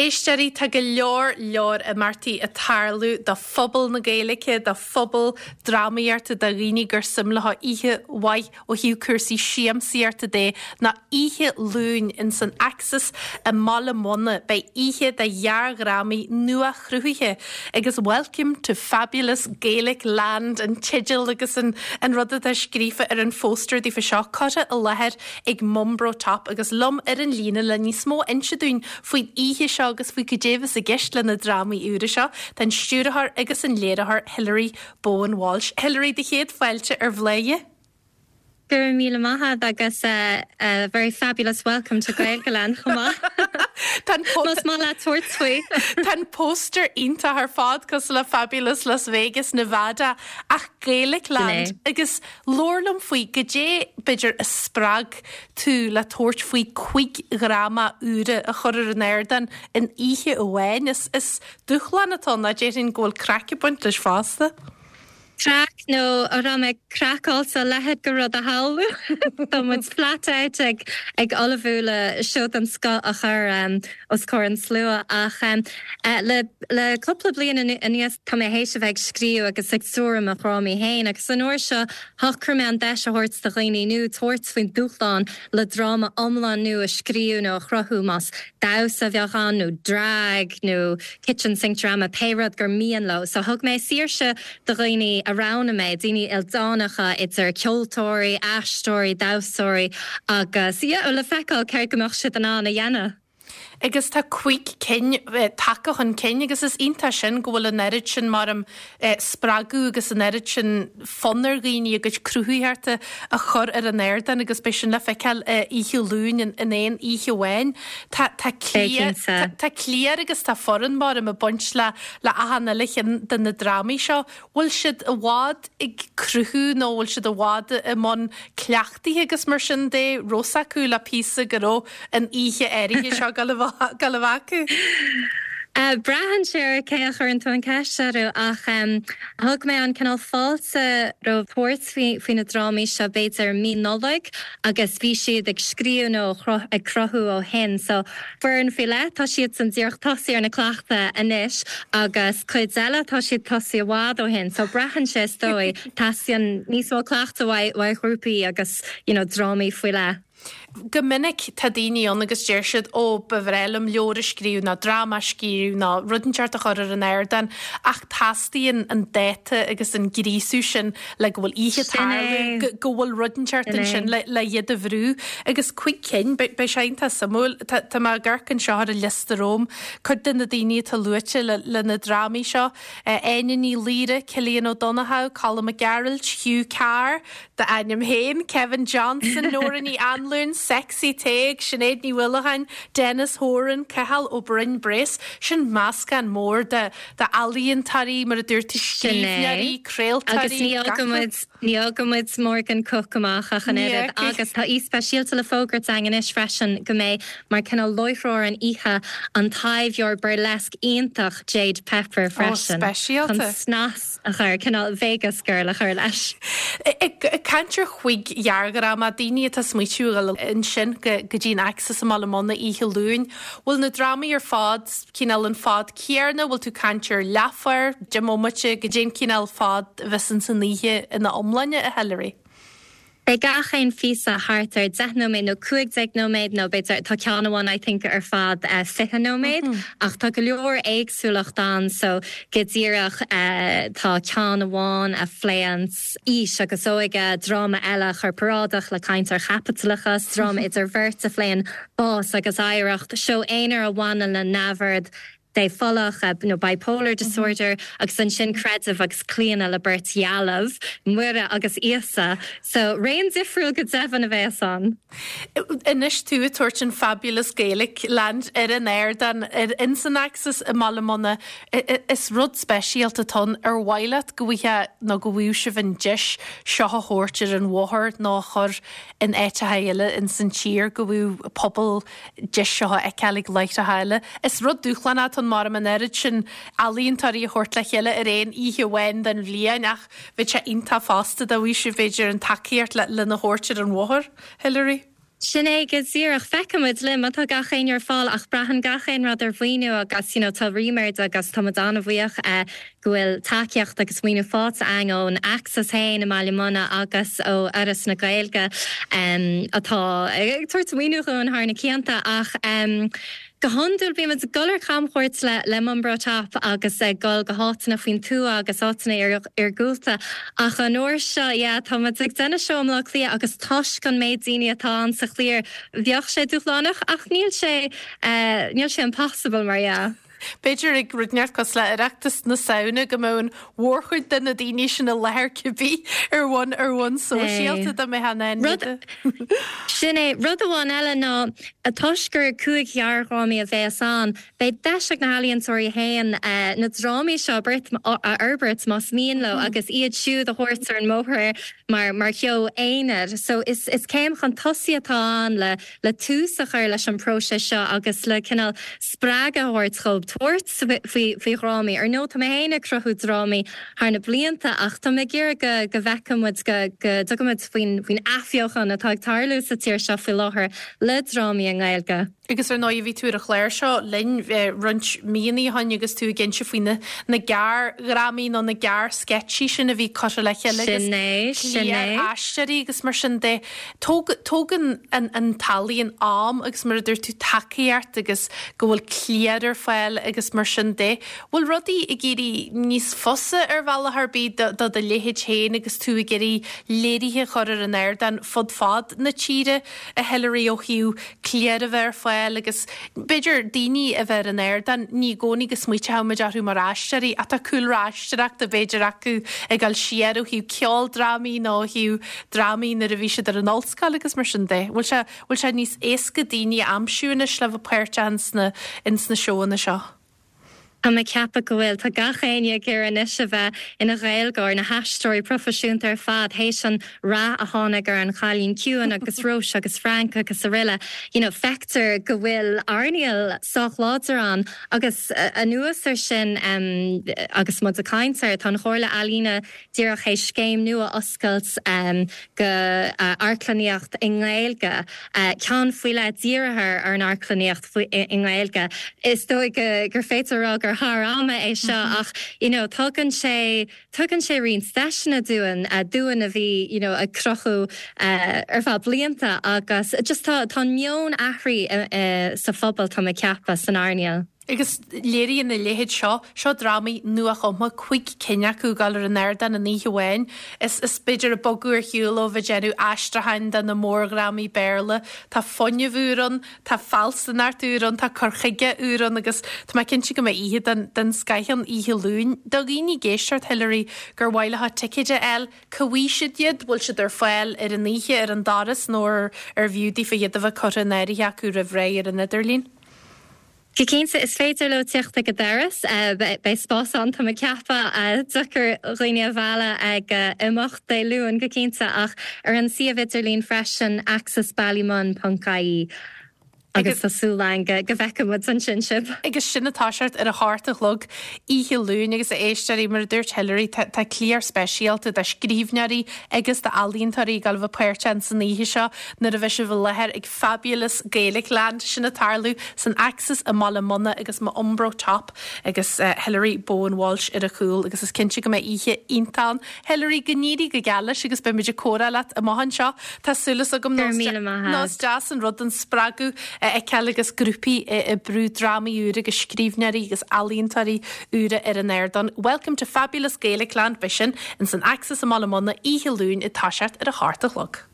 Éisteoirí, tá go leor leor imeachtaí ag tarlú do phobal na Gaeilge, do phobal drámaíochta, do dhaoine gur suim leo oíche mhaith ó thaobh cúrsaí siamsaíochta de ná oíche Luain ins an Axis i mBaile Munna. Beidh oíche de ghearrdhrámaí nua-chruthaithe agus Welcome to Fabulous Gaelic Land an teideal agus an rud atá scríofa ar an phóstaer daofa seo curtha i láthair ag Mumbro Top agus liom ar an líne le níos mó a inse dúinn faoin oíche seo agus faoi cad é a bheas i gceist le na drámaí úra seo, tá an stiúrthóir agus an léiritheoir Hilary Bowen Walsh. Hilary, do chéad fáilte ar Bhladhaire. Go raibh míle maith agat agus a very fabulous welcome to Gaeilgeland chomh maith. Más maith leat tabhairt faoi. Tá an póstaer iontach ar fad cosúil le Fabulous Las Vegas, Nevada ach Gaelic Land agus Labhair liom faoi, goidé b'fhéidir a spreag tú le tabhairt faoi chuig dhráma úra a chur ar an ardán in oíche amháin? Is is dúshlán atá ann, déarfainn go bhfuil craic ag baint leis fosta. Craic nó an raibh mé craiceáilte a leithéid de rud a shamhlú? Tá muid flat out ag ag ullmhú le seó den scoth a chur os comhair an tslua ach le le cúpla bliain anuas tá mé théis a bheith ag scríobh agus ag stiúradh mo dhrámaí féin agus an uair seo shocraigh mé an deis a thabhairt do dhaoine nua tabhairt faoin dúshlán le dráma iomlán nua a scríobh nó a chruthú más damhsa a bheadh ann nó drag nó kitchen sink drama pé rud gur mian leo. So thug mé saoirse do dhaoine a roghnaigh mé, daoine ildánacha idir ceoltóirí, aisteoirí, damhsóirí agus yeah le feiceáil céard go mbeadh siad in ann a dhéanamh. Agus tá cuig cinn tagtha chun cinn agus is iontach sin go bhfuil an oiread sin mar spreagadh agus an oiread sin fonn ar dhaoine a gcuid cruthaitheachta a chur ar an ardán agus beidh sin le feiceáil oíche Luain in aon oíche amháin. Tá tá cliar tá cliar agus tá foireann mar ag baint le le achan uile cheann de na drámaí seo. Bhfuil siad i bhfad ag cruthú nó bhfuil siad i bhfad i mbun cleachtaithe agus mar sin de, raibh fhios acu le píosa go raibh an oíche áirithe seo ag dul a bheith acu? Braitheann sé ar cé a chuireann tú an ceist orthu ach thug mé an cineál fáilte roimh tabhairt faoi na drámaí seo b'fhéidir mí Nollag agus bhí siad ag scríobh nó ag cruthú ó shin so Foireann faoi leith, tá siadsan díreach tosaithe ar na cleachtaidh anois agus cuid eile tá siad tosaithe i bhfad ó shin so braitheann sé is dóigh, teastaíonn níos mó cleachtaidh uaidh ghrúpaí agus you know drámaí faoi leith. Go minic tá daoine ann agus deir siad ó ba bhreá liom leabhar a scríobh nó dráma a scríobh nó rud inteacht a chur ar an ardán ach teastaíonn an dáta agus an gríosú sin le go bhfuil oíche ag tarlú, go bhfuil rud inteacht ansin le iad a bhrú. Agus cuig cinn, beidh sé iontach suimiúil. Tá mé ag amharc anseo ar an liosta romham, cuid de na daoine atá luaite le na drámaí seo, Áine Ní Laoire, Cillian Ó Donnchadha, Colm Mac Gearailt, Hugh Carr, d'ainm féin, Kevin Johnson, Nóra Ní Anluain, Sexy Tadhg, Sinéad Ní Uallacháin, Denis Horan, Cathal Ó Broin Brace. Sin meascán mór de d'ealaíontóirí, mar a dúirt tú, scríbhneoirí, craoltóirí, Agus ní fhágann muid, ní fhágann muid Morgan Cooke amach ach an oiread. Agus tá aoi speisialta le fógairt againn anois freisin go mbeidh mar cineál láithreoir an oíche an taibheoir burlesque iontach Jade Pepper freisin. Speisialta. Chun snas a chur, cineál Vegas girl a chur leis. Ag caint ar chuig ghearrdhráma, daoine atá ag smaoitiú a dhul ansin go dtí an Axis i mBaile Munna oíche Luain, bhfuil na drámaí ar fad cineál an fad céarna, bhfuil tú ag caint ar leathuair, 10 mbomaite, goidé an cineál fad a bheas ins an oíche ina iomláine, a Hilary? Beidh gach aon phíosa thart ar 10 nóiméad nó 15 nóiméad nó b'fhéidir, tá ceann amháin I think ar fad 20 nóiméad ach tá go leor éagsúlacht ann so go díreach tá ceann amháin a phléann aois agus óige, dráma eile corparáideach le caint ar chaipitleachas, dráma idir bheirt a phléann bás agus oidhreacht, seó aonair a bhaineann le neamhord dépholach nó bipolar disorder agus ansin creideamh agus claonadh le beirt dhealbh, Muire agus Íosa. So raon difriúil go deimhin a bheas ann. Anois tú ag tabhairt an Fabulous Gaelic Land ar an ardán ar ins an Axis i mBaile Munna, is rud speisialta atá ann. Ar mhaith leat go bhfaighfeá nó go bhfaigheadh sibh an deis seo a thabhairt ar an bhóthar nó a chur in áiteacha eile ins an tír go bhfaigheadh pobal deis seo a fheiceáil ag láithreacha eile. Is rud dúshlánach atá ann mar an oiread sin ealaíontóirí a thabhairt le chéile ar aon oíche amháin den bhliain ach bheadh sé iontach fosta dá bhfaigheadh sibh b'fhéidir an tacaíocht lena thabhairt ar an bhóthar, Hilary. Sin é go díreach. Feicfimid linn má tá gach éinne ar fáil ach braitheann gach aon rud ar mhaoiniú agus you know tá ríméad agus tá muid an-bhuíoch go bhfuil tacaíocht agus maoiniú faighte againn ón Axis féin i mBaile Munna agus ó Fhoras na Gaeilge atá ag tabhairt maoiniú dhúinn thar na cianta ach Go hiondúil bíonn muid ag dul ar camchuairt le le Mumbro Top agus ag dul go háiteanna faoin tuath agus áiteanna iargúlta ach an uair seo, yeah, tá muid ag déanamh seó i mBleá Cliath agus toisc an méid daoine atá ann sa chliar, bheadh sé dúshlánach ach níl sé, níl sé impossible mar dhea. B'fhéidir ag rud inteacht cosúil le Oireachtas na Samhna go mbeadh an mhórchuid de na daoine sin i láthair cibé ar bhonn ar bhonn sóisialta dá mbeifeá in ann iad a. Sin é. Rud amháin eile ná toisc gur 5 ghearrdhrámaí a bheas ann, beidh deis ag na healaíontóirí féin na drámaí seo a fhorbairt más mian leo agus iad siúd a thabhairt ar an mbóthar mar mar sheó aonair. So is is céim chun tosaigh atá ann le le tús a chur leis an bpróiseas seo agus le cineál spreagadh a thabhairt dhóibh tabhairt faoi faoi dhrámaí. Ar ndóigh, tá mé féin ag cruthú drámaí thar na blianta ach tá mé ag iarraidh go go bhfeicfidh muid go go dtugann muid faoin faoin athbheochan atá ag tarlú sa tír seo faoi láthair le drámaí i nGaeilge. Agus ar ndóigh bhí tú ar an chlár seo linn roinnt míonna ó shin agus tú ag inse faoi na na gearrdhrámaí nó na gearrsceitsí sin a bhí curtha le chéile agus Sin é, sin é. aisteoirí agus mar sin de. Tógann an t-ealaíon am agus mar a dúirt tú tacaíocht agus go bhfuil cliar ar fáil agus mar sin de. Bhfuil rudaí ag éirí níos fusa ar bhealach ar bith do do leithéid féin agus tú ag iarraidh léirithe a chur ar an ardán fud fad na tíre, a Hilary, ó thaobh cliar a bheith ar fáil agus b'fhéidir daoine a bheith ar an ardán, ní i gcónaí go smaoiteoidh muid orthu mar aisteoirí ach tá cúlra aisteoireachta b'fhéidir acu ag dul siar ó thaobh ceoldrámaí nó ó thaobh drámaí nuair a bhí siad ar an ollscoil agus mar sin de. Bhfuil sé, bhfuil sé níos éasca daoine a aimsiú anois le bheith páirteach ins na, ins na seóanna seo? Tá mé ag ceapadh go bhfuil. Tá gach éinne ag iarraidh anois a bheith ina Ghaeilgeoir, na haisteoirí proifisiúnta ar fad, théis an rath a tháinig ar An Cailín Ciúin agus Róis agus Frank agus aroile. You know, feictear go bhfuil earnáil sách láidir ann agus anuas ar sin, agus muid ag caint air, tá an Chomhairle Ealaíne díreach théis scéim nua a oscailt go amharclannaíocht i nGaeilge, ceann faoi leith dírithe ar an amharclannaíocht i nGaeilge. Is dóigh gur féidir a rá gur thar ama é seo ach you know tugann sé, tugann sé roinnt deiseanna dúinn, dúinn a bhí you know ag cruthú ar feadh blianta agus just tá, tá an meon athraithe sa phobal tá mé ag ceapadh, san earnáil. Agus léiríonn a leithéid seo, seo drámaí nuachumtha, 5 cinn acu ag dul ar an ardán in oíche amháin. Is, is b'fhéidir ag bogadh ar shiúl ó bheith ag déanamh aistriúcháin de na mórdhrámaí Béarla. Tá fuinneamh úr ann, tá fealsúnacht úr ann, tá cur chuige úr ann agus tá mé cinnte go mbeidh oíche den, den scoith ann oíche Luain. Do dhaoine ag éisteacht, Hilary, gur mhaith leo ticéid a fháil, Cá bhfaighidh siad iad? Bhfuil siad ar fáil ar an oíche ar an doras nó ar bhfiú daofa iad a bheith curtha in áirithe acu roimh ré ar an idirlíon? Go cinnte, is féidir leo teacht ag an doras. Beidh spás ann, tá mé ag ceapadh. Deacair dhaoine a mhealladh ag imeacht Dé Luain, go cinnte, ach ar an suíomh idirlín freisin, axisballymun ponc ie. Agus tá súil againn go bhfeicfidh muid ansin sibh. Agus sin ag toiseacht ar a hocht a chlog oíche Luain agus a éisteoirí, mar a dúirt Hilary, tá tá cliar speisialta de scríbhneoirí agus d'ealaíontóirí ag dul a bheith páirteach ins an oíche seo nuair a bheidh sibh i láthair ag Fabulous Gaelicland sin ag tarlú san Axis i mBaile Munna agus M'Umbro Top agus Hilary Bowen Walsh ar a chúl agus is cinnte go mbeidh oíche iontach ann. Hilary, go n-éirí go geal leis agus beidh muid ag comhrá leat amach anseo. Tá súil agam Go raibh míle maith nó is deas an rud an spreagadh a fheiceáil agus grúpaí ag brú drámaí úra agus scríbhneoirí agus ealaíontóirí úra ar an ardán. Welcome to Fabulous Gaelicland, beidh sin ins an Axis i mBaile Munna oíche Luain ag toiseacht ar a hocht a chlog.